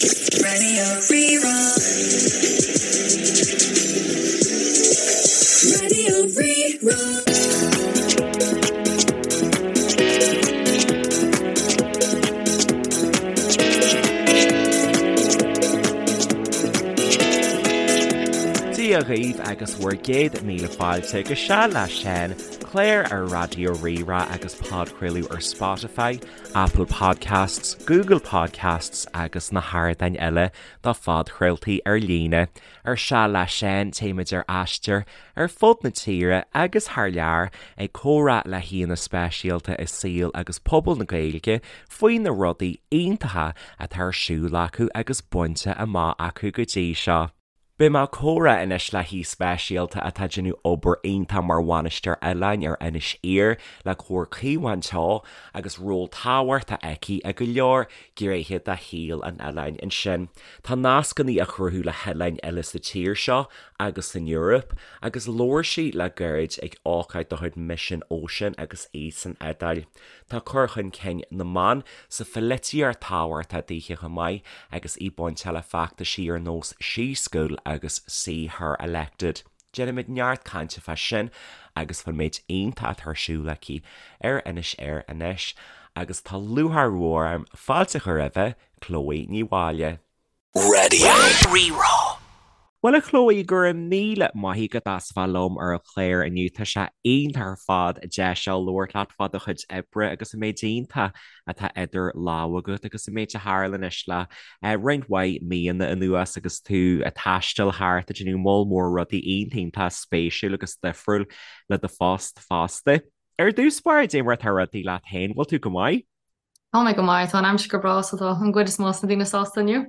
Radio Rí-Rá. Radio Rí-Rá. Dia dhaoibh agus bhur gcéad míle fáilte go Seal le Seán, clár ar Raidió Rí-Rá agus podchraoladh ar Spotify, Apple Podcasts, Google Podcasts agus na hardáin eile do phodchraoltaí ar líne. Ar Seal le Seán, téimid ar aistear ar fud na tíre agus thar lear ag comhrá le haíonna speisialta i saol agus pobal na Gaeilge faoi na rudaí iontacha atá ar siúl acu agus bainte amach acu go dtí seo. Beidh mé ag comhrá anois le haoi speisialta atá ag déanamh obair iontach mar bhainisteoir oileáin ar Inis Oírr le Comhar Caomhán Teo agus ról tábhachtach aici i go leor gnéithe de shaol an oileáin ansin. Tá nascanna á chruthú le hoileáin eile sa tír seo agus san Eoraip agus labhair sí le gairid ag ócáid de chuid Mission Ocean agus í san Iodáil. Tá cur chun cinn na mban sa pholaitíocht tábhachtach daoithe chomh maith agus í bainteach le feachtaisí ar nós She School agus See Her Elected. Déanfaimid neart cainte fá sin agus fán méid iontach atá ar siúl aici ar Inis Oírr anois agus tá lúcháir mhór orm fáilte a chur roimhe, Chloe Ní Mháille. Radio Rí-Rá. Bhuel a Chloe, go raibh míle maith agat as a bheith liom ar an chlár inniu. Tá sé iontach ar fad deis a labhairt leat fá do chuid oibre agus an méid iontach atá idir lámha agat agus an méid a tharla anois le roinnt mhaith míonna anuas agus tú ag taisteal thart ag déanamh moll mór rudaí iontach iontach spéisiúil agus difriúil le do phost fosta. Ar dtús báire, cad é mar atá rudaí leat féin, bhfuil tú go maith? Tá mé go maith, tá an aimsir go breá so tá an gcuid is mó de na daoine sásta inniu.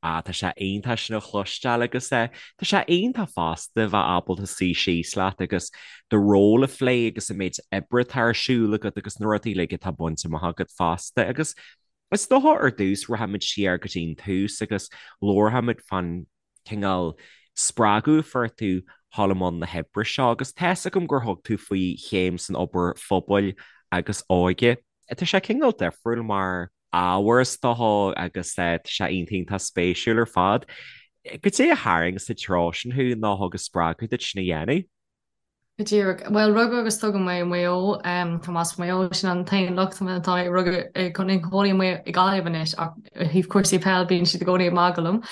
Ah, tá sé iontach sin a chloisteáil agus eh, tá sé iontach fosta bheith ábalta suí síos leat agus do ról a phlé agus an méid oibre atá ar siúl agat agus na rudaí uilig atá bainte amach agat fosta agus is dócha ar dtús rachaimid siar go dtí an tús agus labharfaimid fán cineál spreagadh a fuair tú dhul i mbun na hoibre seo agus tá's agam gur thug tú faoi chéim san obair phobail agus óige. Tá sé cineál difriúil mar ábhar is dócha agus tá sé iontach iontach spéisiúil ar fad. Goidé a tharraing sa treo sin thú nó a thug an spreagadh duit sin a dhéanamh? Go díreach. Bhuel, rugadh agus tógadh mé i Maigh Eo. Tá mé as Maigh Eo, sin an t-aon locht tá mé rugadh i gcónaí i Gaillimh anois ach ó thaobh cúrsaí peil bíonn siad i gcónaí ag magadh liom.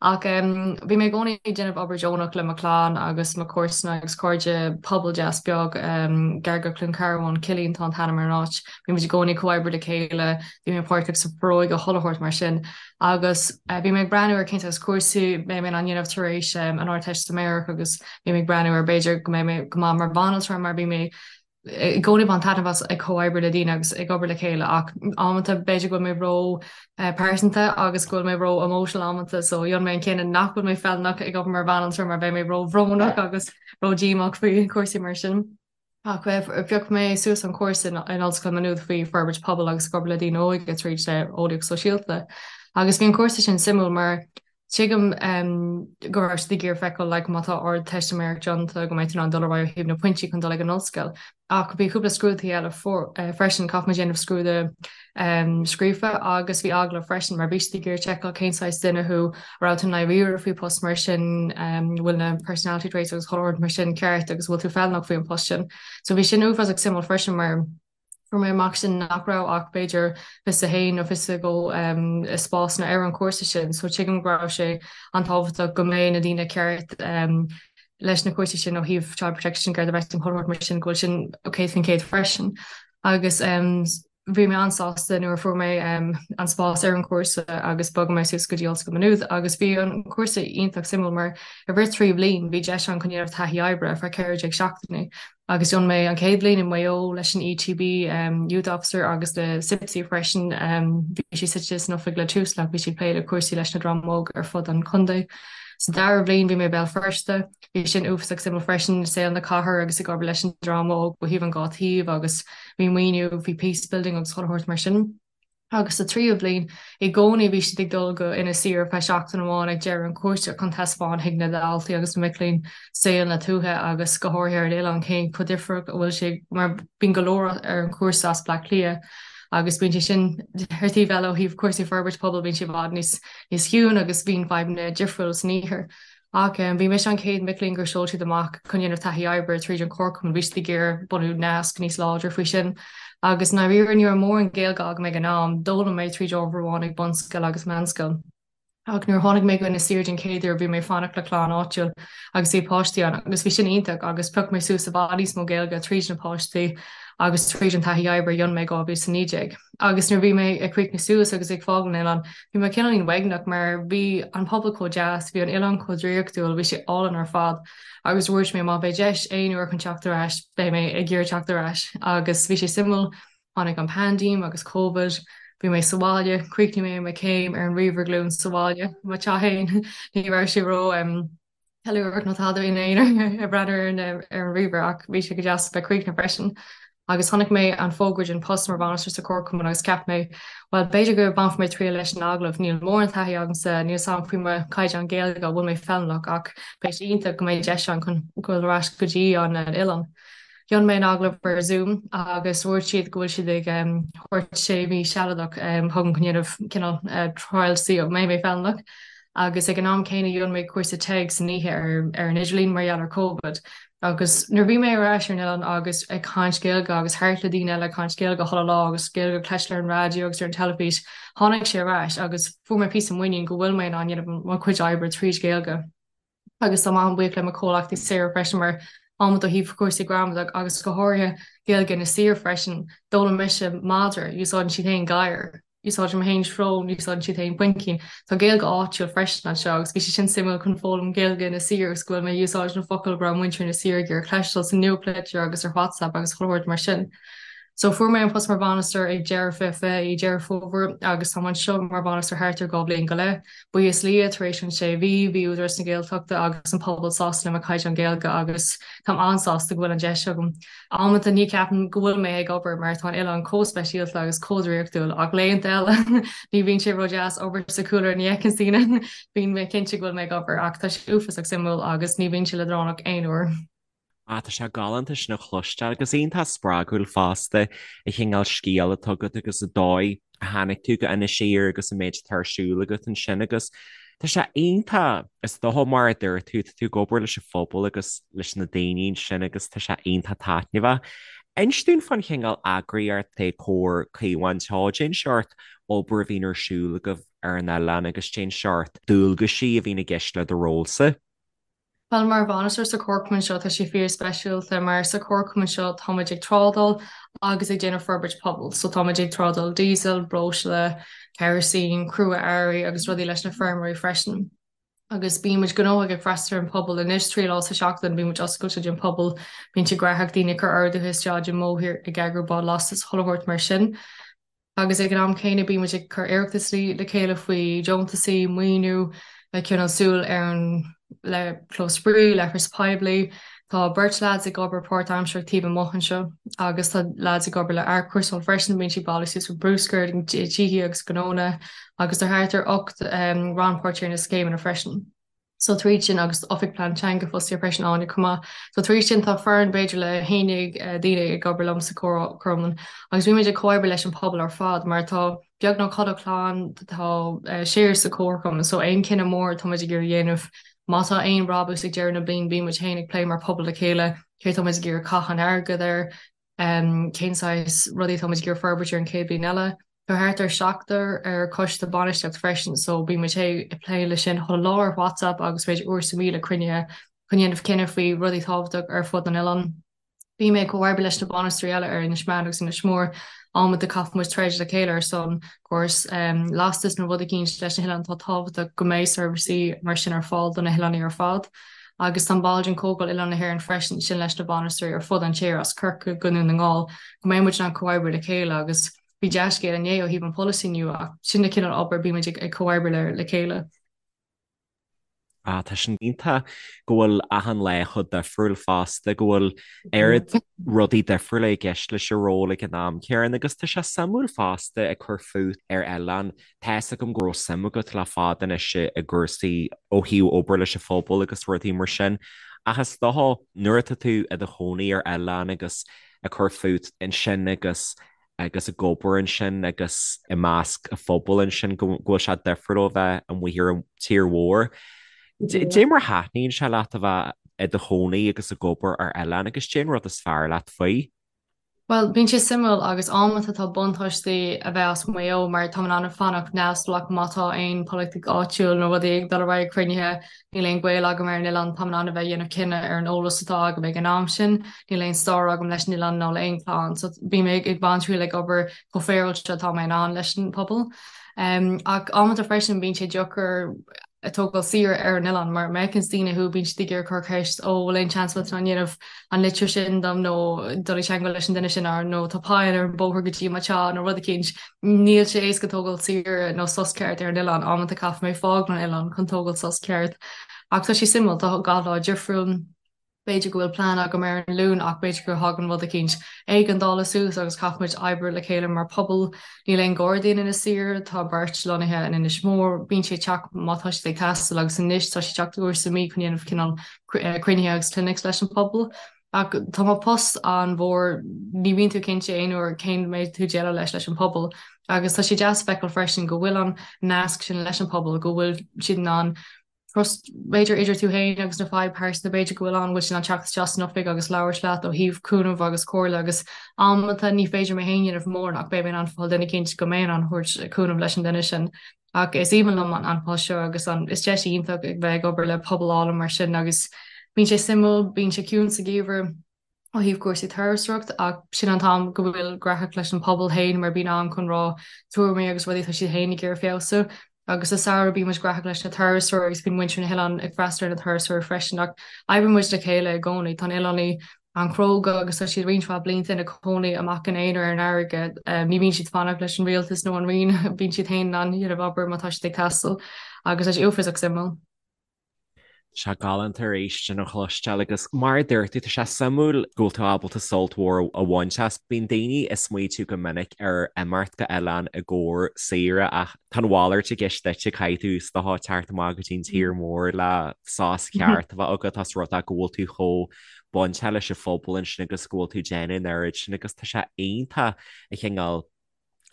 Ach bhí mé i gcónaí ag déanamh obair deonach le mo chlann agus mo chomharsana agus cairde, pobal deas beag gar go Cluain Cearbán, Cillín tá an t-ainm ar an áit. Bhí muid i gcónaí ag comhoibriú le chéile, bhí mé páirteach sa Foróige chuile shórt mar sin. Agus bhí mé ag breathnú ar cén saghas cúrsaí mbeidh mé in ann dhéanamh tar éis an Ardteistiméireacht agus bhí mé ag breathnú ar b'fhéidir go mbeidh mé go maith mar bhanaltra mar bhí mé i gcónaí ag baint taitneamh as ag comhoibriú le daoine agus ag obair le chéile ach amanta b'fhéidir go bhfuil mé ró pearsanta agus go bhfuil mé ró emotional amanta so dhein mé an cinneadh nach bhfuil mé feiliúnach ag obair mar bhanaltra mar beidh mé ró bhrónach agus ró díomách faoi chúrsaí mar sin. Ach phioc mé suas an cúrsa in Ollscoil Maynooth faoi forbairt pobail agus ag obair le daoine óga tríd eolaíocht sóisialta. Agus bhí an cúrsa sin suimiúil mar tuigim go raibh siad ag iarraidh feiceáil like má tá ardteistiméireacht déanta go mbeidh tú in ann dul ar aghaidh ó thaobh na pointí chun dul ag an ollscoil. Ach bhí cúpla scrúduithe eile freisin, caithfidh muid déanamh scrúdú scríofa agus bhí agallamh freisin mar bhí siad ag iarraidh seiceáil cén saghas duine thú, an raibh tú i ndáiríre faoi post mar sin, bhfuil na personality traits agus chuile shórt mar sin ceart agus bhfuil tú feiliúnach faoi an post sin. So bhí sin uafásach suimiúil freisin mar fuair mé amach sin nach raibh ach b'fhéidir 21 nó 22 spásanna ar an chúrsa sin so tuigim go raibh sé an-tábhachtach go mbeidh na daoine ceart leis na cúrsaí sin ó thaobh child protection, Garda vetting chuile shórt mar sin go bhfuil sin 100% freisin agus bhí mé an-sásta nuair a fuair mé an spás ar an chúrsa agus bhog mé suas go dtí Ollscoil Maynooth agus bhí an cúrsa iontach suimiúil mar i rith 3 bhliain bhí deis ann chun dhéanamh taithí oibre ar feadh 14 seachtainí agus dhein mé an chéad bhliain i Maigh Eo leis an ETB Youth Officer agus le CIPSI freisin bhí sí suite san oifig le Tusla bhí sí ag plé le cúrsaí leis na dream óg ar fud an chontae. Sa dara bhliain bhí mé i Béal Feirste, bhí sin uafásach suimiúil freisin, saol na cathair agus ag obair leis an dream óg ó thaobh an dhá taobh agus bhí maoiniú faoi peace building agus chuile shórt mar sin. Agus sa tríú bhliain, i gcónaí bhí siad ag dul go Inis Oírr ar feadh seachtain amháin ag deireadh an chúrsa chun taispeáint chuig na daltaí agus na mic léinn saol na tuaithe agus go háirithe ar an oileán cén chomh difriúil a bhfuil sé mar bíonn go leor ar an chúrsa as Bleá Cliath. Agus bíonn sé sin ar taobh eile ó thaobh cúrsaí forbairt pobail bíonn sé i bhfad níos níos ciúin agus bíonn fadhbanna difriúil san iarthar. Ach bhí mise an chéad mic léinn gur sheol siad amach chun dhéanamh taithí oibre tríd an Chomharchumann, bhí siad ag iarraidh bunú nasc níos láidre faoi sin. Agus i ndáiríre ní raibh mórán Gaeilge agam ag an am, d'fhoghlaim mé tríd ábhar amháin ag bunscoil agus meánscoil. Ach nuair a tháinig mé go Inis Oírr den chéad uair bhí mé ag fanacht le clann áitiúil agus bhí páistí ann agus bhí sin iontach agus phioc mé suas i bhfad níos mó Gaeilge tríd na páistí agus tríd an taithí oibre a dhein mé i 2019. Agus nuair a bhí mé ag críochnú suas agus ag fágáil an oileáin, bhí mé cineáilín uaigneach mar bhí an pobal chomh deas, bhí an oileán chomh draíochtúil, bhí sé álainn ar fad agus dúirt mé má bheidh deis aon uair chun teacht ar ais, beidh mé ag iarraidh teacht ar ais. Agus bhí sé suimiúil, tháinig an paindéim agus Covid, bhí mé sa bhaile, chríochnaigh mé mo chéim ar an ríomhaire glúine sa bhaile, mo teach féin, ní raibh sé ró. ceiliúradh nó tada in aon ag breathnú ar an ar an ríomhaire ach bhí sé go deas bheith críochnaithe freisin. Agus chonaic mé an fógra den post mar bhainisteoir sa Chomharchumann agus cheap mé, bhuel b'fhéidir go mbainfidh mé triail leis an agallamh, níl mórán taithí agamsa, níl 's a'm faoi mo chaighdeán Gaeilge, an bhfuil mé feiliúnach ach beidh sé iontach go mbeidh deis ann chun dul ar ais go dtí an oileán. Dhein mé an agallamh ar Zoom agus dúirt siad go bhfuil siad ag thabhairt sé mhí sealadach chugam chun dhéanamh cineál trial see an mbeidh mé feiliúnach agus ag an am céanna dhein mé cúrsa TEG san oíche ar ar an idirlíon mar gheall ar Covid agus nuair a bhí mé ar ais ar an oileán agus ag caint Gaeilge agus thart le daoine eile ag caint Gaeilge chuile lá agus Gaeilge ag cloisteáil ar an raidió agus ar an teilifís tháinig sé ar ais agus fuair mé píosa muinín go bhfuil mé in ann dhéanamh mo chuid oibre tríd Gaeilge. Agus táim an-bhuíoch le mo chomhleachtaí Sarah freisin mar amanta ó thaobh cúrsaí gramadach agus go háirithe Gaeilge Inis Oírr freisin, d'fhoghlaim mise madra, úsáideann siad féin gadhar, úsáidim féin srón, úsáideann siad féin puimcín. Tá Gaeilge áitiúil freisin anseo agus bhí sé sin suimiúil chun foghlaim Gaeilge Inis Oírr agus go bhfuil mé ag úsáid na focail go raibh muintir Inis Oírr ag iarraidh cloisteáil sa nuachtlitir agus ar WhatsApp agus chuile shórt mar sin. So fuair mé an post mar bhainisteoir ag deireadh 2020 i Deireadh Fómhair agus táim anseo mar bhainisteoir thart ar 2 bhliain go leith. Buíochas le Dia, tar éis an sé mhí, bhí Údarás na Gaeltachta agus an pobal sásta le mo chaighdeán Gaeilge agus táim an-sásta go bhfuil an deis agam. Amanta ní cheapaim go bhfuil mé ag obair mar tá an oileán chomh speisialta agus chomh draíochtúil ach laethanta eile ní bhíonn sé ró-deas obair sa chúlra ní fheiceann daoine bíonn mé cinnte go bhfuil mé ag obair ach tá sé uafásach suimiúil agus ní bhíonn sé leadránach aon uair. Ah, tá sé galánta sin a chloisteáil agus iontach spreagúil fosta an cineál scéal atá agat agus an dóigh a tháinig tú go Inis Oírr agus an méid atá ar siúl agat ansin agus tá sé iontach, is dócha mar a dúirt tú, tá tú ag obair leis an phobal agus leis na daoine ansin agus tá sé iontach taitneamhach. Inis dúinn fán chineál eagraíocht é Comhar Caomhán Teo, cén seort obair a bhíonn ar siúl agaibh ar an oileán agus cén seort dualgaisí a bhíonn i gceist le do rólsa. Bhuel, mar bhainisteoir sa chomharchumann seo, tá sé fíor speisialta mar sa chomharchumann seo táimid ag trádáil agus ag déanamh forbairt pobail. So táimid ag trádáil diesel, breosla, kerosene, crua-earraí agus rudaí leis na feirmeoirí freisin. Agus bímid gnóthach ag freastal ar an pobal anois 3 lá sa seachtain, bímid oscailte don pobal, bíonn sé gnóthach daoine ag cur orduithe isteach i mBóthar, ag eagrú bád lastais, chuile shórt mar sin. Agus ag an am céanna bímid ag cur iarratas le chéile faoi deontasaí, maoiniú, ag coinneáil súil ar an le clós spraoi, leithreas poiblí. Tá beirt leaids ag obair páirtaimsearach taobh amuigh anseo agus tá leaids ag obair le athchúrsáil freisin, bíonn siad ag bailiú suas bruscar i dtithe agus gnónna agus tá thart ar 8 rannpháirtí ar na scéimeanna freisin. So tríd sin agus Oifig Plean Teanga fostaithe freisin Áine chomh maith. So tríd sin tá foireann b'fhéidir le 11 daoine ag obair liom sa chomharchumann agus bímid ag comhoibriú leis an pobal ar fad mar tá beagnach chuile chlann tá siar sa chomharchumann so aon cinneadh mór táimid ag iarraidh dhéanamh má tá aon brabús ag deireadh na bliain bímid féin ag plé mar pobal le chéile céard táimid ag iarraidh caitheamh an airgead air cén saghas rudaí táimid ag iarraidh forbairt ar an chéad bhliain eile. Tá thart ar seachtar ar choiste bainistíocht freisin so bíonn muid ag plé le sin chuile lá ar WhatsApp agus b'fhéidir uair sa mhí le cruinnithe chun dhéanamh cinneadh faoi rudaí tábhachtach ar fud an oileáin. Bím ag comhoibriú leis na bainisteoirí eile ar Inis Meáin agus Inis Mór. Amanta caithfidh muid troid le chéile ar son córas lastais nó rud eicínt leis na hoileáin atá tábhachtach go mbeidh seirbhísí mar sin ar fáil do na hoileánaigh ar fad. Agus táim ball den Comhdháil Oileáin na hÉireann freisin, sin leis na bainisteoirí ar fud an tír as Corcaigh go Dún na nGall, go mbeidh muid in ann comhoibriú le chéile agus bhí dea-scéal inné ó thaobh an polasaí nua ach sin na cineál obair bímid ag comhoibriú le chéile. Ah, tá sin iontach go bhfuil achan lá chomh difriúil fosta, go bhfuil oiread rudaí difriúla i gceist leis an ról ag an am céanna agus tá sé suimiúil fosta ag cur fút ar oileán Tá's agam go raibh suim agat le fada anois i gcúrsaí ó thaobh obair leis an phobal agus rudaí mar sin, ach is dócha nuair atá tú i do chónaí ar oileán agus ag cur fút ansin agus. agus ag obair ansin agus i measc an phobail ansin go bhfuil sé difriúil ó bheith amuigh ar an tír mhór. Dé mar a thaitníonn sé leat a bheith i do chónaí agus ag obair ar oileán agus cén rud is fearr leat faoi? Bhuel, bíonn sé suimiúil agus amanta tá buntáistí a bheith as Maigh Eo mar táim in ann fanacht neamhspleách má tá aon polaitíocht áitiúil nó rudaí ag dul ar aghaidh cruinnithe, níl aon gaol agam ar an oileán, táim in ann a bheith ag déanamh cinneadh ar an eolas atá agam ag an am sin, níl aon stair agam leis an oileán ná le aon chlann so bím ag baint triail ag obair chomh féaráilte atá mé in ann leis an pobal. Ach amanta freisin bíonn sé deacair ag tógáil saoire ar an oileán mar má fheiceanns daoine thú bíonn siad ag iarraidh cur ceist ó bhfuil aon seans bhfuil tú in ann dhéanamh an litir sin dom nó dul i dteagmháil leis an duine sin nó tá poill ar an bóthar go dtí mo teach nó rud eicínt. Níl sé éasca tógáil saoire nó sos ceart ar an oileán, amanta caithfidh mé fágáil an oileán chun tógáil sos ceart. Ach tá sé suimiúil, tá gach lá difriúil. B'fhéidir go bhfuil plean agam ar an Luan ach b'fhéidir go thagann rud eicínt éigeandála suas agus caithfidh muid oibriú le chéile mar pobal. Níl aon Ghardaí in Inis Oírr, tá beirt lonnaithe in Inis Mór, bíonn siad ag teacht má tá siad ag teastáil agus anois tá siad ag teacht uair sa mí chun dhéanamh cineál cruinnithe agus clinics leis an pobal. Ach tá mo post an-mhór, ní bhíonn tú cinnte aon uair cén mbeidh tú déileáil leis leis an pobal agus tá sé deas feiceáil freisin go bhfuil an nasc sin leis an pobal, go bhfuil siad in ann trust b'fhéidir idir tú féin agus na fadhb pearsanta b'fhéidir go bhfuil ann, bhfuil siad in ann teacht isteach san oifig agus labhairt leat ó thaobh cúnamh agus comhairle agus amanta ní féidir mé féin dhéanamh mórán ach beidh mé in ann fáil duine eicínt go mbeidh in ann thabhairt cúnamh leis an duine sin. Ach is aoibhinn liom an post seo agus an is deis iontach ag bheith ag obair le pobal álainn mar sin agus bíonn sé suimiúil, bíonn sé ciúin sa gheimhreadh. ó thaobh cúrsaí turasóireacht ach sin an t-am go bhfuil graitheach leis an pobal féin mar bíonn am chun rá tuairimí agus rudaí atá siad féin ag iarraidh feabhsú. Agus sa samhradh bíonn muid graitheach leis na turasóirí agus bíonn muintir na hoileán ag freastal ar na turasóirí freisin ach oibríonn muid le chéile i gcónaí. Tá na hoileánaigh an-chróga agus tá siad roinnt mhaith blianta ina cónaí amach ina aonar ar an fharraige. Ní bhíonn siad fanacht leis an rialtas nó an roinn, bíonn siad féin in ann dhéanamh obair má tá siad ag teastáil agus tá sé uafásach suimiúil. Tá sé galánta arís sin a chloisteáil agus mar a dúirt tú, tá sé suimiúil go bhfuil tú ábalta sult mhór a bhaint as. Bíonn daoine ag smaoitiú go minic ar imeacht go oileán i gcomhair saoire ach tá an mhalairt i gceist duitse, caithfidh tú is dócha teacht amach go dtí an tír mór le sos ceart a bheith agat as rud é go bhfuil tú chomh bainteach leis an phobal ansin agus go bhfuil tú ag déanamh an oiread sin agus tá sé iontach an cineál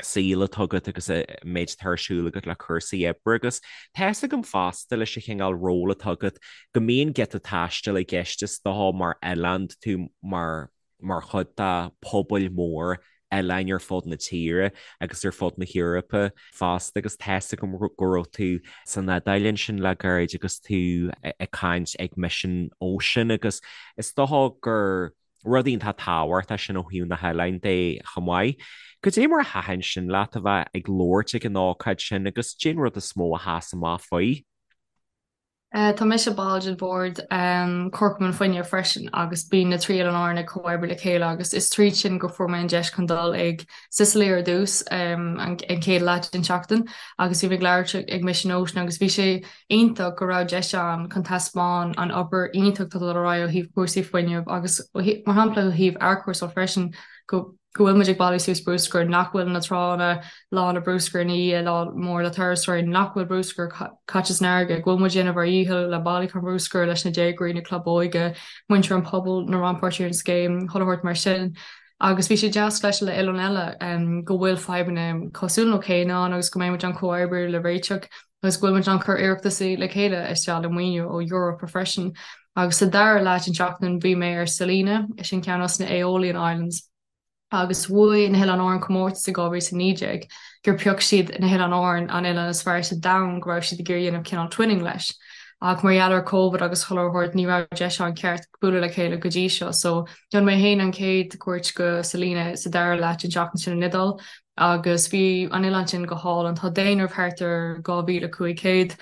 saol atá agat agus an méid atá ar siúl agat le cúrsaí oibre agus tá fhios agam fosta leis an chineál ról atá agat go mbíonn giota taistil i gceist is dócha mar oileán tú mar mar chuid de pobail mór oileáin ar fud na tíre agus ar fud na hEorpa fosta agus tá fhios agam go raibh tú san Iodáil ansin le gairid agus tú ag caint ag Mission Ocean agus is dócha gur Rud iontach tábhachtach sin ó thaobh na hoileáin de chomh maith. Cad é mar a thaitin sin leat a bheith ag labhairt ag an ócáid sin agus cén rud is mó a sheas amach faoi? Tá mise ball den bhord Comharchumann Fuinnimh freisin agus bíonn na 3 Oileán Árann ag comhoibriú le chéile agus is tríd sin go fuair mé an deis chun dul ag Sicily ar dtús an chéad leath den tseachtain agus bhí mé ag labhairt ag Mission Ocean agus bhí sé iontach go raibh deis ann chun taispeáin an obair iontach atá dul ar aghaidh ó thaobh cúrsaí fuinnimh agus mar shampla ó thaobh athchúrsáil freisin go go bhfuil muid ag bailiú suas bruscar, nach bhfuil na tránna lán le bruscar ina dhiaidh lá mór le turasóirí, nach bhfuil bruscar caite san fharraige, go bhfuil muid ag déanamh ár dhícheall le bailiúchán bruscair leis na déagóirí, na club óige, muintir an pobail, na rannpháirtithe ar an scéim, chuile shórt mar sin. Agus bhí sé deas cloisteáil le oileáin eile go bhfuil fadhbanna cosúil nó céanna ann agus go mbeidh muid in ann comhoibriú le réiteach. agus go bhfuil muid in ann cur iarrachtaí le chéile isteach le maoiniú ó Europa freisin. Agus sa dara leath den tseachtain bhí mé ar Salina, sin ceann dos na Aeolian Islands, agus bhuaigh na hOileáin Árann comórtas i 2019 gur phioc siad na hOileáin Árann an oileán is fearr sa domhan go raibh siad ag iarraidh dhéanamh cineál twinning leis. Ach mar gheall ar Covid agus chuile shórt ní raibh deis ann ceart bualadh le chéile go dtí seo. So dhein mé féin an chéad cuairt go Salina sa dara leath den tseachtain sin in Iodáil agus bhí an oileán sin go hálainn. Tá daonradh thart ar 2,500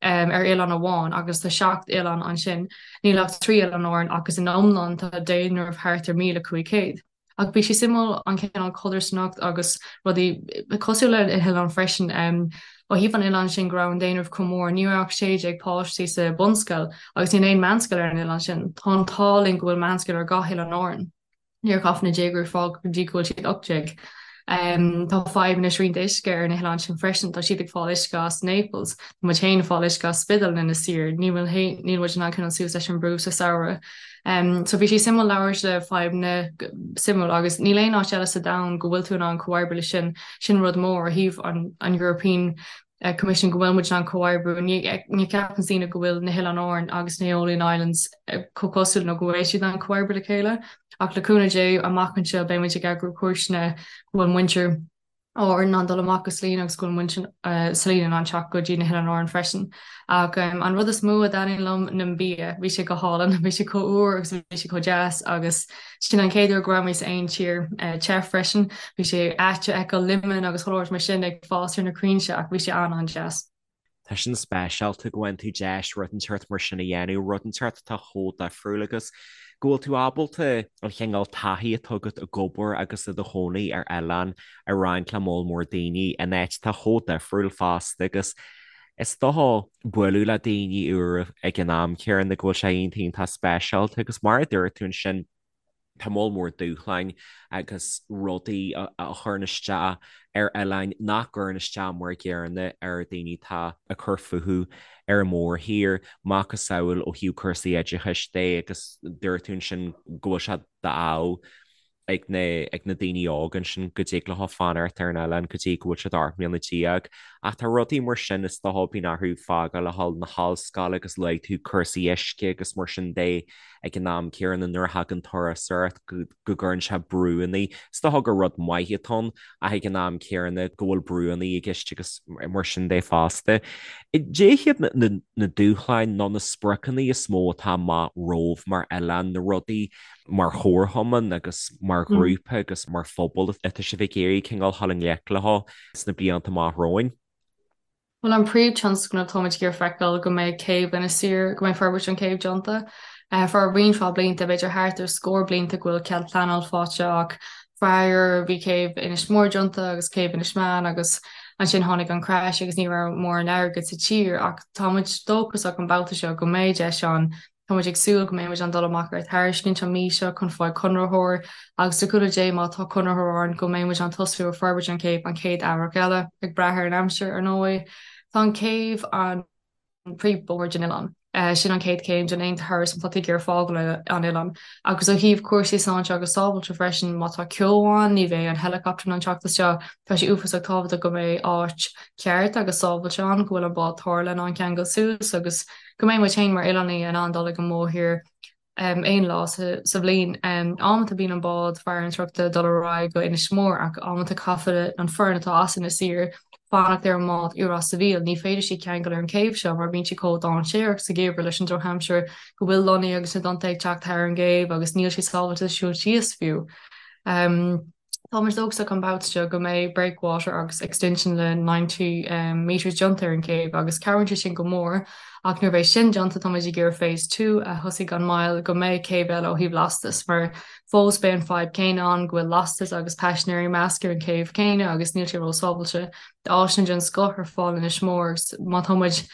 ar oileán amháin agus tá 7 oileán ansin. Níl ach 3 oileán Árann agus in iomlán tá daonradh thart ar 1,500. Ach bhí sé suimiúil an cineál codarsnacht agus rudaí cosúil le na hoileáin freisin. Ó thaobh an oileáin sin go raibh an daonradh chomh mór, ní raibh ach 16 páistí sa bunscoil agus níl aon meánscoil ar an oileán sin. Tá an t-ádh linn go bhfuil meánscoil ar gach oileán Árann. Níor chaith na déagóirí fág go dtí go bhfuil siad 18. Tá fadhb na srianta uisce ar na hoileáin sin freisin, tá siad ag fáil uisce as Naples, tá muid féin ag fáil uisce as Spiddal in Inis Oírr, níl níl muid in ann coinneáil suas leis an brú sa samhradh. So bhí sé suimiúil labhairt le fadhbanna suimiúil agus níl aon áit eile sa domhan go bhfuil tú in ann comhoibriú le sin, sin rud mór ó thaobh an an European Commission go bhfuil muid in ann comhoibriú. Ní ní cheapann daoine go bhfuil na hOileáin Árann agus na Aeolian Islands chomh cosúil nó go bhfuil siad in ann comhoibriú le chéile. Ach le cúnamh Dé, amach anseo beidh muid ag eagrú cuairteanna go bhfuil muintir Árann in ann dul amach go Salina agus go bhfuil muintir Salina in ann teacht go dtí na hOileáin Árann freisin. Ach an rud is mó a dtaitníonn liom ná an bia. Bhí sé go hálainn, bhí sé chomh úr agus bhí sé chomh deas agus sin an chéad uair go raibh mé sa aon tír te freisin. Bhí sé ait a fheiceáil lemon agus chuile shórt mar sin ag fás ar na crainnte ach bhí sé an-an-deas. Tá sin speisialta go bhfaigheann tú deis rud inteacht mar sin a dhéanamh, rud inteacht atá chomh difriúil agus go bhfuil tú ábalta an chineál taithí atá agat ag obair agus i do chónaí ar oileán a roinnt le moll mór daoine in áit atá chomh difriúil fosta agus is dócha bualadh le daoine úra ag an am céanna go bhfuil sé iontach iontach speisialta agus mar a dúirt tú ansin Tá moll mór dúshláin agus rudaí a chuireann isteach ar oileáin nach gcuireann isteach mar an gcéanna ar daoine atá ag cur fúthu ar an mórthír, macasamhail ó thaobh cúrsaí oideachais de agus dúirt tú ansin go bhfuil sé d'ádh ag na ag na daoine óga ansin go dtig leo fanacht ar an oileán go dtí go bhfuil siad 18 mbliana. Ach tá rudaí mar sin is dócha bíonn orthu fágáil a dhul na hollscoile agus luaigh tú cúrsaí uisce agus mar sin de. ag an am céanna nuair a thagann turasóireacht go gcuireann sé brúanna, is dócha gur rud maith atá ann ach ag an am céanna go bhfuil brúanna i gceist agus mar sin de fosta. Cad é hiad na dúshláin nó na spriocanna is mó atá amach romhaibh mar oileán, na rudaí mar chomharchumann agus mar ghrúpa agus mar phobal atá sibh ag iarraidh cineál dul i ngleic leo sna blianta amach romhainn? Bhuel, an príomh-tionscnamh, táimid ag iarraidh feiceáil go mbeidh céibh Inis Oírr, go mbeidh forbairt an céibh déanta. Feadh roinnt mhaith blianta, b'fhéidir thart ar scór blianta go bhfuil cead pleanáil faighte ach faraor bhí céibh Inis Mór déanta agus céibh Inis Meáin agus ansin tháinig an crash agus ní raibh mórán airgid sa tír ach táimid dóchasach an babhta seo go mbeidh deis ann Tá muid ag súil go mbeidh muid in ann dul amach ar tairiscint an mhí seo chun fáil conraitheoir agus le cúnamh Dé má tá conraitheoir ann go mbeidh muid in ann tosú ar forbairt an chéibh an chéad earrach eile, ag brath ar an aimsir ar ndóigh. Tá an chéibh an príomhbhóthar den oileán. Sin an chéad chéim den aon turas má tá tú ag iarraidh fágáil an oileán. Agus ó thaobh cúrsaí sláinte agus sábháilte freisin, má tá ceo ann ní bheidh an helicopter in ann teacht isteach. Tá sé uafásach tábhachtach go mbeidh áit cheart agus sábháilte ann, go bhfuil an bád tarrthála in ann ceangal suas agus go mbeidh muid féin mar oileánaigh in ann dul ag an mórthír aon lá sa bhliain. Amanta bíonn an bád farantóireachta ag dul ar aghaidh go Inis Mór ach amanta caithfidh an foireann atá as Inis Oírr fanacht ar an mbád i Ros a' Mhíl. Ní féidir siad ceangal ar an chéibh seo mar bíonn siad chomh dainséarach sa gheimhreadh leis an drochaimsir go bhfuil lonnaí agus na dtonnta ag teacht thar an gcéibh agus níl sé sábháilte siúl síos fiú. Tá muid dóchasach an babhta seo go mbeidh breakwater agus extension le 90 metres déanta ar an chéibh agus cabhraíonn sé sin go mór ach nuair a bheidh sin déanta tá muid ag iarraidh phase 2 a thosaigh gan mhoill go mbeidh céibh eile ó thaobh lastas mar fós beidh an fadhb céanna ann go bhfuil lastas agus paisinéirí measctha ar an chéibh céanna agus níl sé ró-sábháilte. Tá áiseanna den scoth ar fáil in Inis Mór agus má tá muid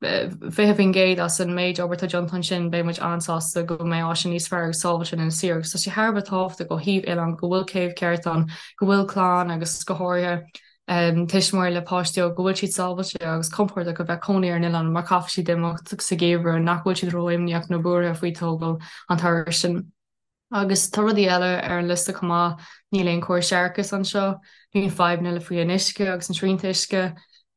20% as an méid obair atá déanta ansin, beidh muid an-sásta go mbeidh áiseanna níos fearr agus sábháilte in Inis Oírr agus tá sé thar a bheith tábhachtach ó thaobh oileán go bhfuil céibh ceart ann, go bhfuil clann agus go háirithe tuismitheoirí le páistí óga, go bhfuil siad sábháilte agus compordach a bheith cónaí ar an oileán mar caithfidh siad imeacht sa gheimhreadh nach bhfuil siad ró-imníoch nó buartha faoi tógáil an turais sin. Agus tá rudaí eile ar an liosta chomh maith, níl aon chóras séarachais anseo, bíonn fadhbanna le faoi an uisce agus an srianta uisce,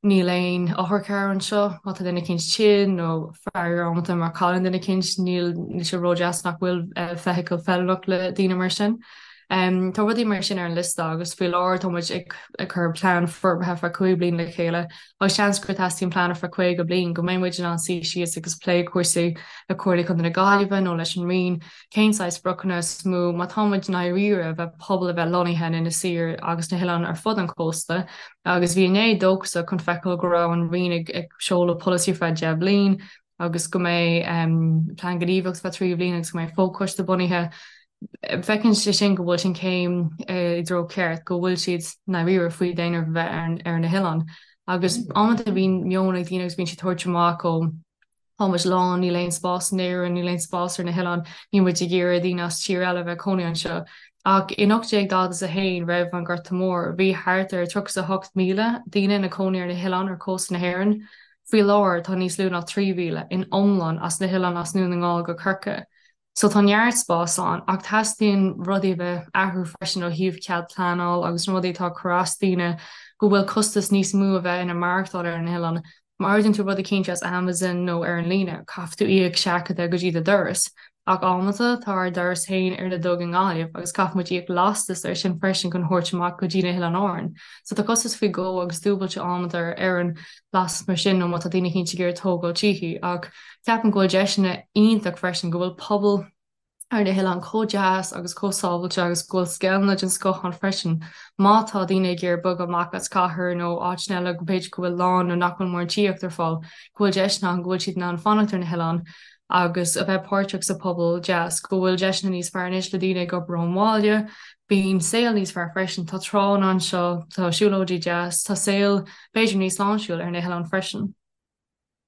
níl aon otharcharr anseo, má tá duine eicínt tinn nó faraor amanta má chailleann duine eicínt, níl sé ródheas nach bhfuil feithicil feiliúnach le daoine mar sin. Tá rudaí mar sin ar an liosta agus faoi láthair tá muid ag cur plean forbartha feadh 5 bliain le chéile agus seans gur teastaíonn plean ar feadh 50 bliain go mbeidh muid in ann suí síos agus plé cúrsaí le Comhairle Contae na Gaillimhe nó leis an Roinn Cén saghas spriocanna is mó má tá muid i ndáiríre a bheith pobal a bheith lonnaithe in Inis Oírr agus na hoileáin ar fud an chósta agus bhí inné dóchasach chun feiceáil go raibh an Roinn ag ag seoladh polasaí ar feadh 10 bliain agus go mbeidh plean gníomhaíochta feadh 3 bhliain agus go mbeidh fochoiste bunaithe. Feiceann sé sin go bhfuil sin céim i dtreo ceart, go bhfuil siad i ndáiríre faoi daonra a bheith ar na hoileáin. Agus amanta bíonn meon ag daoine agus bíonn siad tabhairt amach ó Tá muid lán, níl aon spás in Éirinn, níl aon spás ar na hoileáin, níl muid ag iarraidh daoine as tír eile a bheith ag cónaí anseo. Ach in 1841, roimh an Ghorta Mór, bhí thart ar 38,000 daoine ina cónaí ar na hoileáin ar chósta na hÉireann. Faoi láthair, tá níos lú ná 3,000 in iomlán as na hoileáin as nDún na nGall go Corcaigh. So tá neart spás ann, ach teastaíonn rudaí a bheith athrú freisin ó thaobh cead pleanáil agus na rudaí atá ag cur as daoine go bhfuil costas níos mó a bheith ina maireachtáil ar an oileán. Má ordaíonn tú rud eicínt as Amazon nó ar an líne, caithfidh tú íoc seachadadh go dtí do doras. Ach amanta, tá ár doras féin ar na Duga i nGaillimh agus caithfidh muid íoc lastas air sin freisin chun thabhairt amach go dtí na hOileáin Árann. So tá costas faoi dhó agus dúbailte amanta ar an lastas mar sin nó má tá daoine eicínt ag iarraidh tógáil tithe. Ach ceapaim go bhfuil deiseanna iontach freisin go bhfuil pobal ar na hoileáin chomh deas agus chomh sábhailte agus go bhfuil scoileanna den scoth ann freisin. Má tá daoine ag iarraidh bogadh amach as cathair nó áiteanna eile go b'fhéidir go bhfuil lán nó nach bhfuil mórán tithíocht ar fáil, go bhfuil deiseanna ann go bhfuil siad in ann fanacht ar na hoileáin agus a bheith páirteach sa pobal deas, go bhfuil deiseanna níos fearr anois le daoine ag obair ón bhaile, bíonn saol níos fearr freisin, tá tránna anseo, tá siúlóidí deas, tá saol b'fhéidir níos sláintiúil ar na hoileáin freisin.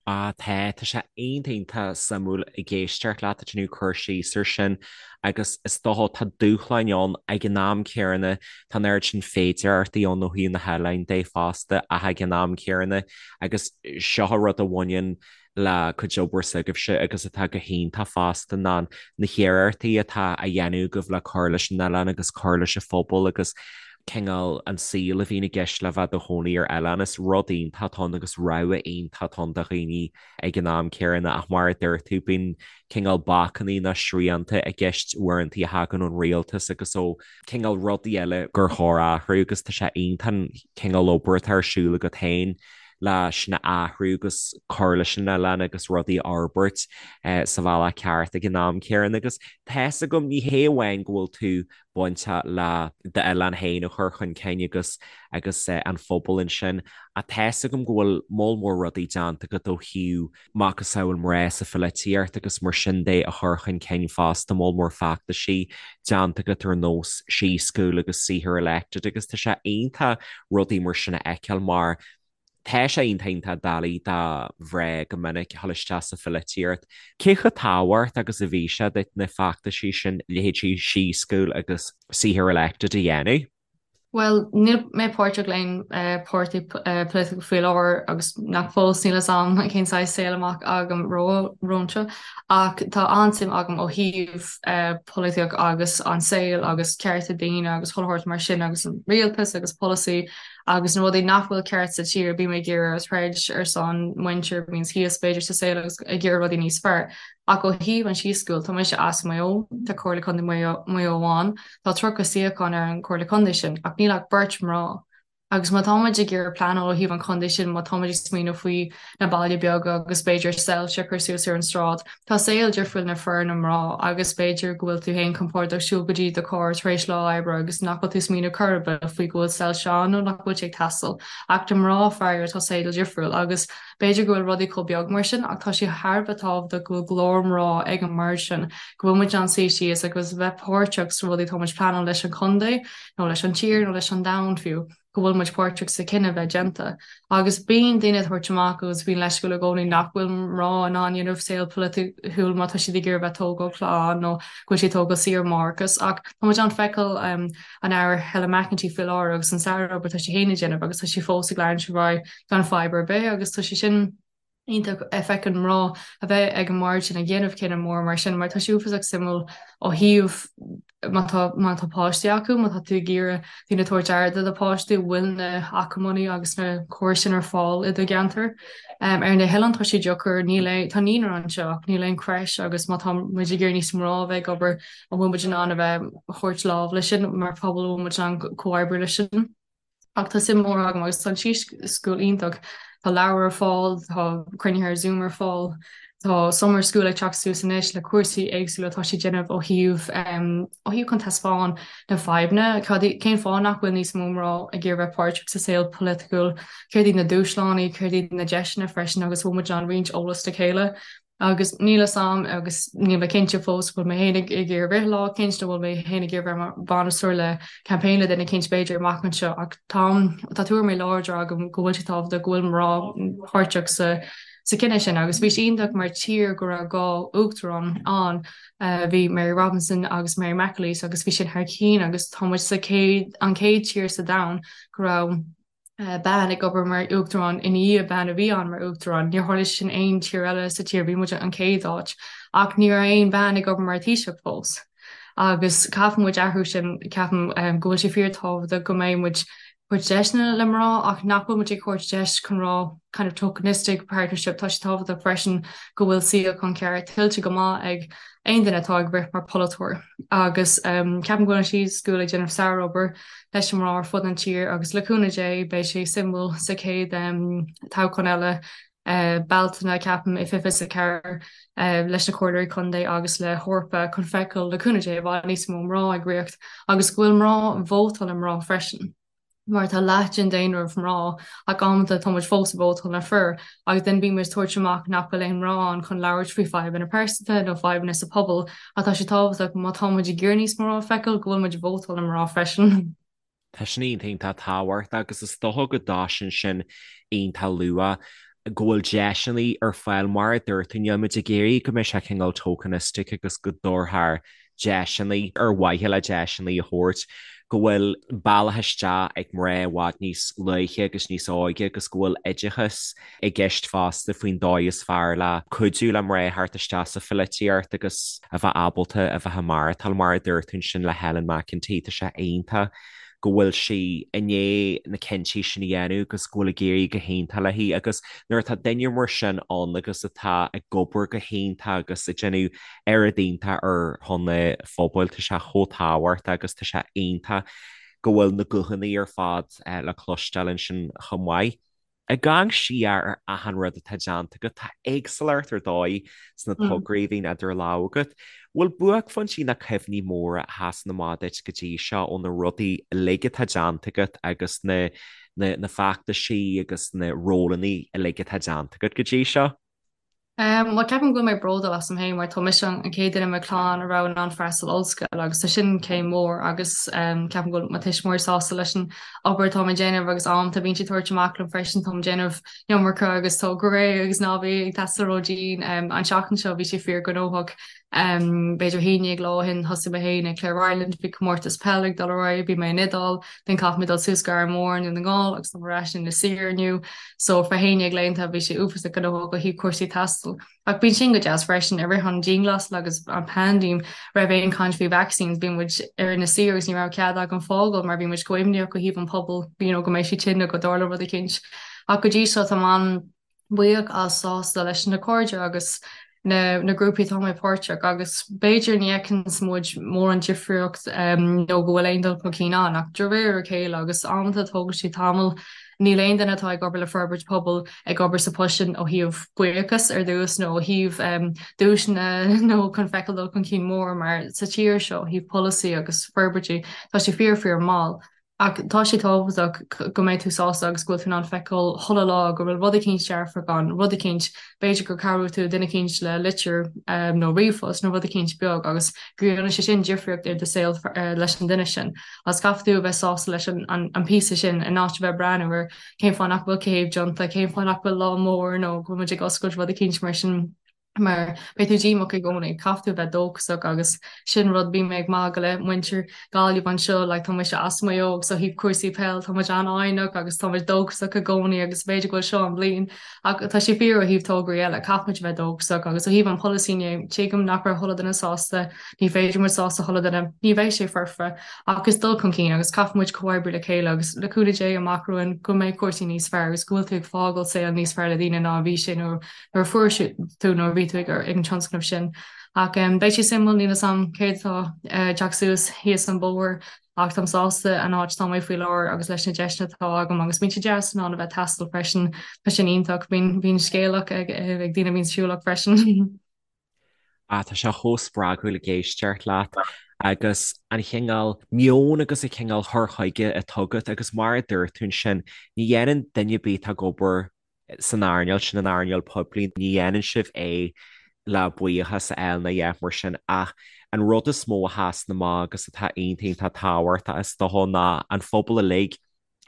Ah tá, tá sé iontach iontach suimiúil ag éisteacht leat ag déanamh cur síos ar sin agus is dócha tá dúshláin ann ag an am céanna, tá an oiread sin féidearthachtaí ann ó thaobh na hoileáin de fosta ach ag an am céanna agus seo an rud a bhaineann le cuid obair s'agaibhse agus atá go hiontach fosta ná na hiarrachtaí atá á dhéanamh agaibh le cur leis an oileán agus cur leis an phobal agus cineál an saol a bhíonn i gceist le bheith i do chónaí ar oileán. Is rud iontach atá ann agus rogha iontach atá ann do dhaoine ag an am céanna ach mar a dúirt tú, bíonn cineál bacannaí nó srianta i gceist uaireanta a thagann ón rialtas agus ó cineál rudaí eile gur chóir athrú agus tá sé iontach an cineál obair atá ar siúl agat féin le sin a athrú agus cur leis an oileán agus rudaí a fhorbairt sa bhealach ceart ag an am céanna agus tá's agam ní hé amháin go bhfuil tú bainteach le d'oileán féin a chur chun cinn agus agus an phobal ansin. Ach tá's agam go bhfuil moll mór rudaí déanta agat ó thaobh macasamhail mná sa pholaitíocht agus mar sin de a chur chun cinn fosta, moll mór feachtaisí déanta agat ar nós She School agus See Her Elected agus tá sé iontach rudaí mar sin a fheiceáil mar Tá sé iontach iontach doiligh do mhná go minic a dhul isteach sa pholaitíocht. Cé chomh tábhachtach agus a bhí sé duit na feachtaisí sin, leithéidí She School agus See Her Elected a dhéanamh? Bhuel, níl mé páirteach le haon páirtí polaitiúil faoi láthair agus nach fós níl fhios a'm cén saghas saol amach agam romhainn ach tá an-suim agam ó thaobh polaitíocht agus an saol agus cearta daoine agus chuile shórt mar sin agus an rialtas agus polasaí Agus na rudaí nach bhfuil ceart sa tír, bím ag iarraidh troid ar son muintir a bhíonns thíos b'fhéidir sa saol agus ag iarraidh rudaí níos fearr. Ach ó thaobh an She School, tá mise as Maigh Eo, tá Comhairle Contae Mhaigh Eo ann, tá 30 suíochán ar an Chomhairle Contae sin, ach níl ach beirt mná. Agus má tá muid ag iarraidh pleanáil ó thaobh an chontae sin, má tá muid ag smaoineamh faoi na baile beaga agus b'fhéidir soilse a chur suas ar an sráid, Tá saol difriúil na fir na mná agus b'fhéidir go bhfuil tú féin compordach siúl go dtí do charr tar éis lá oibre agus nach bhfuil tú smaoineamh chor ar bith faoi go bhfuil soilse ann nó nach bhfuil sé ag teastáil. Ach do mná faraor tá saol difriúil agus b'fhéidir go bhfuil rudaí chomh beag mar sin ach tá sé thar a bheith tábhachtach go bhfuil glór mná ag an mbord sin, go bhfuil muid in ann suí síos agus bheith páirteach sna rudaí atá muid pleanáil leis an chontae nó leis an tír nó leis an domhan fiú. go bhfuil muid páirteach sa cinneadh bheith déanta. Agus bíonn daoine ag tabhairt amach agus bíonn leisciúil i gcónaí nach bhfuil mná in ann dhéanamh saol polaitiúil má tá siad ag iarraidh bheith tógáil clann nó go bhfuil siad tógáil saoire máithreachais. Ach tá muid in ann feiceáil an Aire Helen McEntee faoi láthair agus an sárobair atá sí féin ag déanamh agus tá sí fós ag leanúint ar aghaidh gan fadhb ar bith agus tá sé sin iontach a feiceann mná a bheith ag an mbord sin ag déanamh cinneadh mór mar sin mar tá sé uafásach suimiúil ó thaobh má tá má tá páistí acu, má tá tú ag iarraidh daoine tabhairt aire do do pháistí, bhfuil na hacmhainní agus na córais sin ar fáil i do gceantar. Um, ar na hoileáin tá sé deacair, níl aon tá naíonra anseo ach níl aon creche agus má tá muid ag iarraidh níos mná a bheith ag obair, an bhfuil muid in ann a bheith thabhairt lámh leis sin mar phobal, an bhfuil muid in ann comhoibriú leis sin? Ach tá suim mhór agam agus tá an She School iontach. Tá leabhair ar fáil, tá cruinnithe ar Zoom ar fáil, tá Summer School ag teacht suas anois le cúrsaí éagsúla atá siad déanamh ó thaobh ó thaobh chun taispeáin na fadhbanna, cad cén fáth nach bhfuil níos mó mná ag iarraidh bheith páirteach sa saol polaitiúil, céard iad na dúshláin, céard iad na deiseanna freisin agus bhfuil muid in ann roinnt eolas le chéile. Agus níl fhios a'm agus níl mé cinnte fós bhfuil mé féin ag iarraidh rith lá eicínt nó bhfuil mé féin ag iarraidh bheith mar bhainisteoir le campaign le duine eicínt b'fhéidir amach anseo ach táim tá tuairimí láidre agam go bhfuil sé tábhachtach go bhfuil mná páirteach sa sa cinneadh sin agus bhí sé iontach mar tír go raibh 2 uachtarán ann, bhí Mary Robinson agus Mary McAleese agus bhí sin thar cinn agus tá muid sa chéad, an chéad tír sa domhan go raibh bean ag obair mar uachtarán i ndiaidh bean a bhí ann mar uachtarán. Níor tharla sin aon tír eile sa tír, bhí muid an chéad áit ach ní raibh aon bhean ag obair mar Taoiseach fós. Agus caithfidh muid athrú sin, ceapaim go bhfuil sé fíor tábhachtach go mbeidh muid tabhairt deiseanna le mná ach nach bhfuil muid ag tabhairt deis chun rá kind of tokenistic partnership, tá sé tábhachtach freisin go bhfuil suíochán ceart tuillte go maith ag aon duine atá ag rith mar pholaiteoir agus ceapaim go bhfuil an She School ag déanamh sárobair leis na mná ar fud an tír agus le cúnamh Dé beidh sé suimiúil sa chéad toghchán eile Bealtaine, ceapaim, i 2024 leis na Comhairleoirí Contae agus le hEorpa chun feiceáil le cúnamh Dé i bhfad níos mó mná ag ritheacht agus go bhfuil mná vótáil le mná freisin mar tá leath den daonra mná ach amanta tá muid fós ag vótáil le fir agus then bíonn muid ag tabhairt amach nach bhfuil aon mná ann chun labhairt faoi fadhbanna pearsanta nó fadhbanna sa pobal ach tá sé tábhachtach má tá muid ag iarraidh níos mó mná a feiceáil go bhfuil muid ag vótáil le mná freisin. Tá sin iontach tábhachtach agus is dócha go dtosaíonn sin iontach luath, go bhfuil deiseanna ar fáil mar a dúirt tú, níl muid ag iarraidh go mbeidh sé cineál tokenistic agus go dtabharfar deiseanna ar mhaithe le deiseanna a thabhairt, go bhfuil bealach isteach ag mná i bhfad níos luaithe agus níos óige agus go bhfuil oideachas i gceist fosta faoin dóigh is fearr le cuidiú le mná theacht isteach sa pholaitíocht agus a bheith ábalta a bheith ag maireachtáil, mar a dúirt tú ansin le Helen McEntee, tá sé iontach go bhfuil sí i ndiaidh na cinntí sin a dhéanamh agus go bhfuil ag éirí go hiontach léi agus nuair atá duine mar sin ann agus atá ag obair go hiontach agus ag déanamh oiread iontach ar shon an phobail, tá sé chomh tábhachtach agus tá sé iontach go bhfuil na guthanna ar fad le cloisteáil ansin chomh maith. Ag amharc siar ar achan rud atá déanta agat, tá éagsúlacht ar dóigh sna tograí a bhíonn idir lámha agat. Bhfuil buaicphointí nó cuimhní móra a sheasann amach duit go dtí seo ó na rudaí uilig atá déanta agat agus na na feachtaisí agus na rólanna uilig atá déanta agat go dtí seo? Bhuel, ceapaim go bhfuil mé bródúil asam féin mar tá mise an chéad duine i mo chlann a raibh in ann freastal ollscoil agus tá sin céim mhór agus ceapaim go bhfuil mo thuismitheoirí sásta leis an obair atá mé ag déanamh agus amanta bíonn siad ag tabhairt amach liom freisin, táim ag déanamh iomarca agus tá go réidh agus ná bí ag taisteal ró-dhian. An tseachtain seo bhí sé fíor gnóthach. B'fhéidir 11 lá ó shin thosaigh mé féin ag Clare Ireland, bhí comórtas peile ag dul ar aghaidh, bhí mé in Iodáil, then chaith mé dul suas go Árainn Mhór i nDún na nGall agus táim ar ais in Inis Oírr inniu. So for 11 laethanta bhí sé uafásach gnóthach ó thaobh cúrsaí taistil. Ach bíonn sin go deas freisin, i rith an dianghlasáil agus an paindéim raibh aon caint faoi vaccines, bhí muid ar Inis Oírr agus ní raibh cead againn fágáil mar bhí muid chomh imníoch ó thaobh an pobal, you know, go mbeidh siad tinn nó go dtarlódh rud eicínt. Ach go dtí seo táim an buíoch as sásta leis na cairde agus na na grúpaí atá mé páirteach agus b'fhéidir ní fheiceanns muid mórán difríocht nó go bhfuil aon dul chun cinn ann ach de réir a chéile agus amanta tógann sé tamall níl aon duine atá ag obair le forbairt pobail ag obair sa post sin ó thaobh buíochas ar dtús nó ó thaobh duaiseanna nó chun feiceáil dul chun cinn mór mar sa tír seo ó thaobh polasaí agus forbairtí tá sé fíor fíor mall. Ach tá sé tábhachtach go mbeidh tú sásta agus go bhfuil tú in ann feiceáil chuile lá go bhfuil rud eicínt dearfach ann, rud eicínt, b'fhéidir gur cabhraigh tú duine eicínt le litir nó ríomhphost nó rud eicínt beag agus go dhéanann sé sin difríocht ar do saol leis an duine sin. Agus caithfidh tú a bheith sásta leis an píosa sin in áit a bheith ag breathnú ar cén fáth nach bhfuil céibh déanta, cén fáth nach bhfuil lá mór nó go bhfuil muid ag oscailt rud eicínt mar sin. mar beidh tú díomách i gcónaí, caithfidh tú a bheith dóchasach agus sin rud, bím ag magadh le muintir Gaillimh anseo, like tá mise as Maigh Eo agus ó thaobh cúrsaí peil tá muid an-fhoighneach agus tá muid dóchasach i gcónaí agus b'fhéidir go bhfuil seo an bhliain ach tá sé fíor ó thaobh tograí eile, caithfidh muid a bheith dóchasach agus ó thaobh an polasaí inné, tuigim nach raibh chuile duine sásta, ní féidir muid sásta chuile duine, ní bheidh sé foirfe ach is dul chun cinn agus caithfidh muid comhoibriú le chéile agus le cúnamh Dé amach romhainn go mbeidh cúrsaí níos fearr agus go bhfuil tú ag fágáil saol níos fearr le daoine ná a bhí sé nuair nuair a fuair tú nuair a bhí tú ag an tionscnamh sin. Ach beidh sé suimiúil, níl 'fhios a'm céard atá ag teacht suas thíos an bóthar ach táim sásta an áit atá mé faoi láthair agus leis na deiseanna atá agam agus bíonn sé deas in ann a bheith ag taisteal freisin, tá sin iontach, bíonn bíonn scéalach ag ag daoine a bhíonn siúlach freisin. Ah, tá sé chomh spreagúil ag éisteacht leat agus an chineál meoin agus an cineál cur chuige atá agat agus mar a dúirt tú ansin, ní dhéanann duine ar bith atá ag obair san earnáil sin, an earnáil poiblí, ní dhéanann sibh é le buíochas a fháil ná a dhath mar sin ach an rud is mó a sheasann amach agus atá iontach iontach tábhachtach is dócha ná an phobal uilig.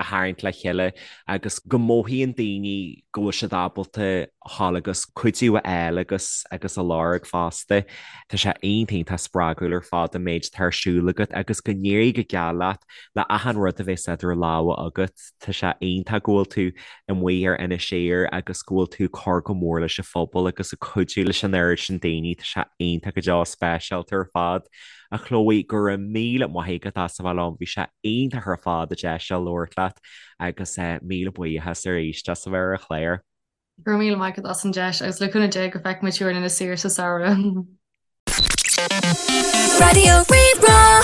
a tharraingt le chéile agus go mothaíonn daoine go bhfuil siad ábalta dhul agus cuidiú a fháil agus agus a lorg fosta. Tá sé iontach iontach spreagúil ar fad an méid atá ar siúl agat agus go n-éirí go geal leat le achan rud a bheas idir lámha agat. Tá sé iontach go bhfuil tú amuigh ar Inis Oírr agus go bhfuil tú ag cur go mór leis an phobal agus ag cuidiú leis an oiread sin daoine. Tá sé iontach go deo speisialta ar fad. A Chloe, go raibh míle maith agat as a bheith liom, bhí sé iontach ar fad an deis seo labhairt leat agus míle buíochas arís as a bheith ar an chlár. Go raibh míle maith agat as an deis agus le cúnamh Dé go bhfeicfidh muid thú ar Inis Oírr sa samhradh. Raidió Rí-Rá.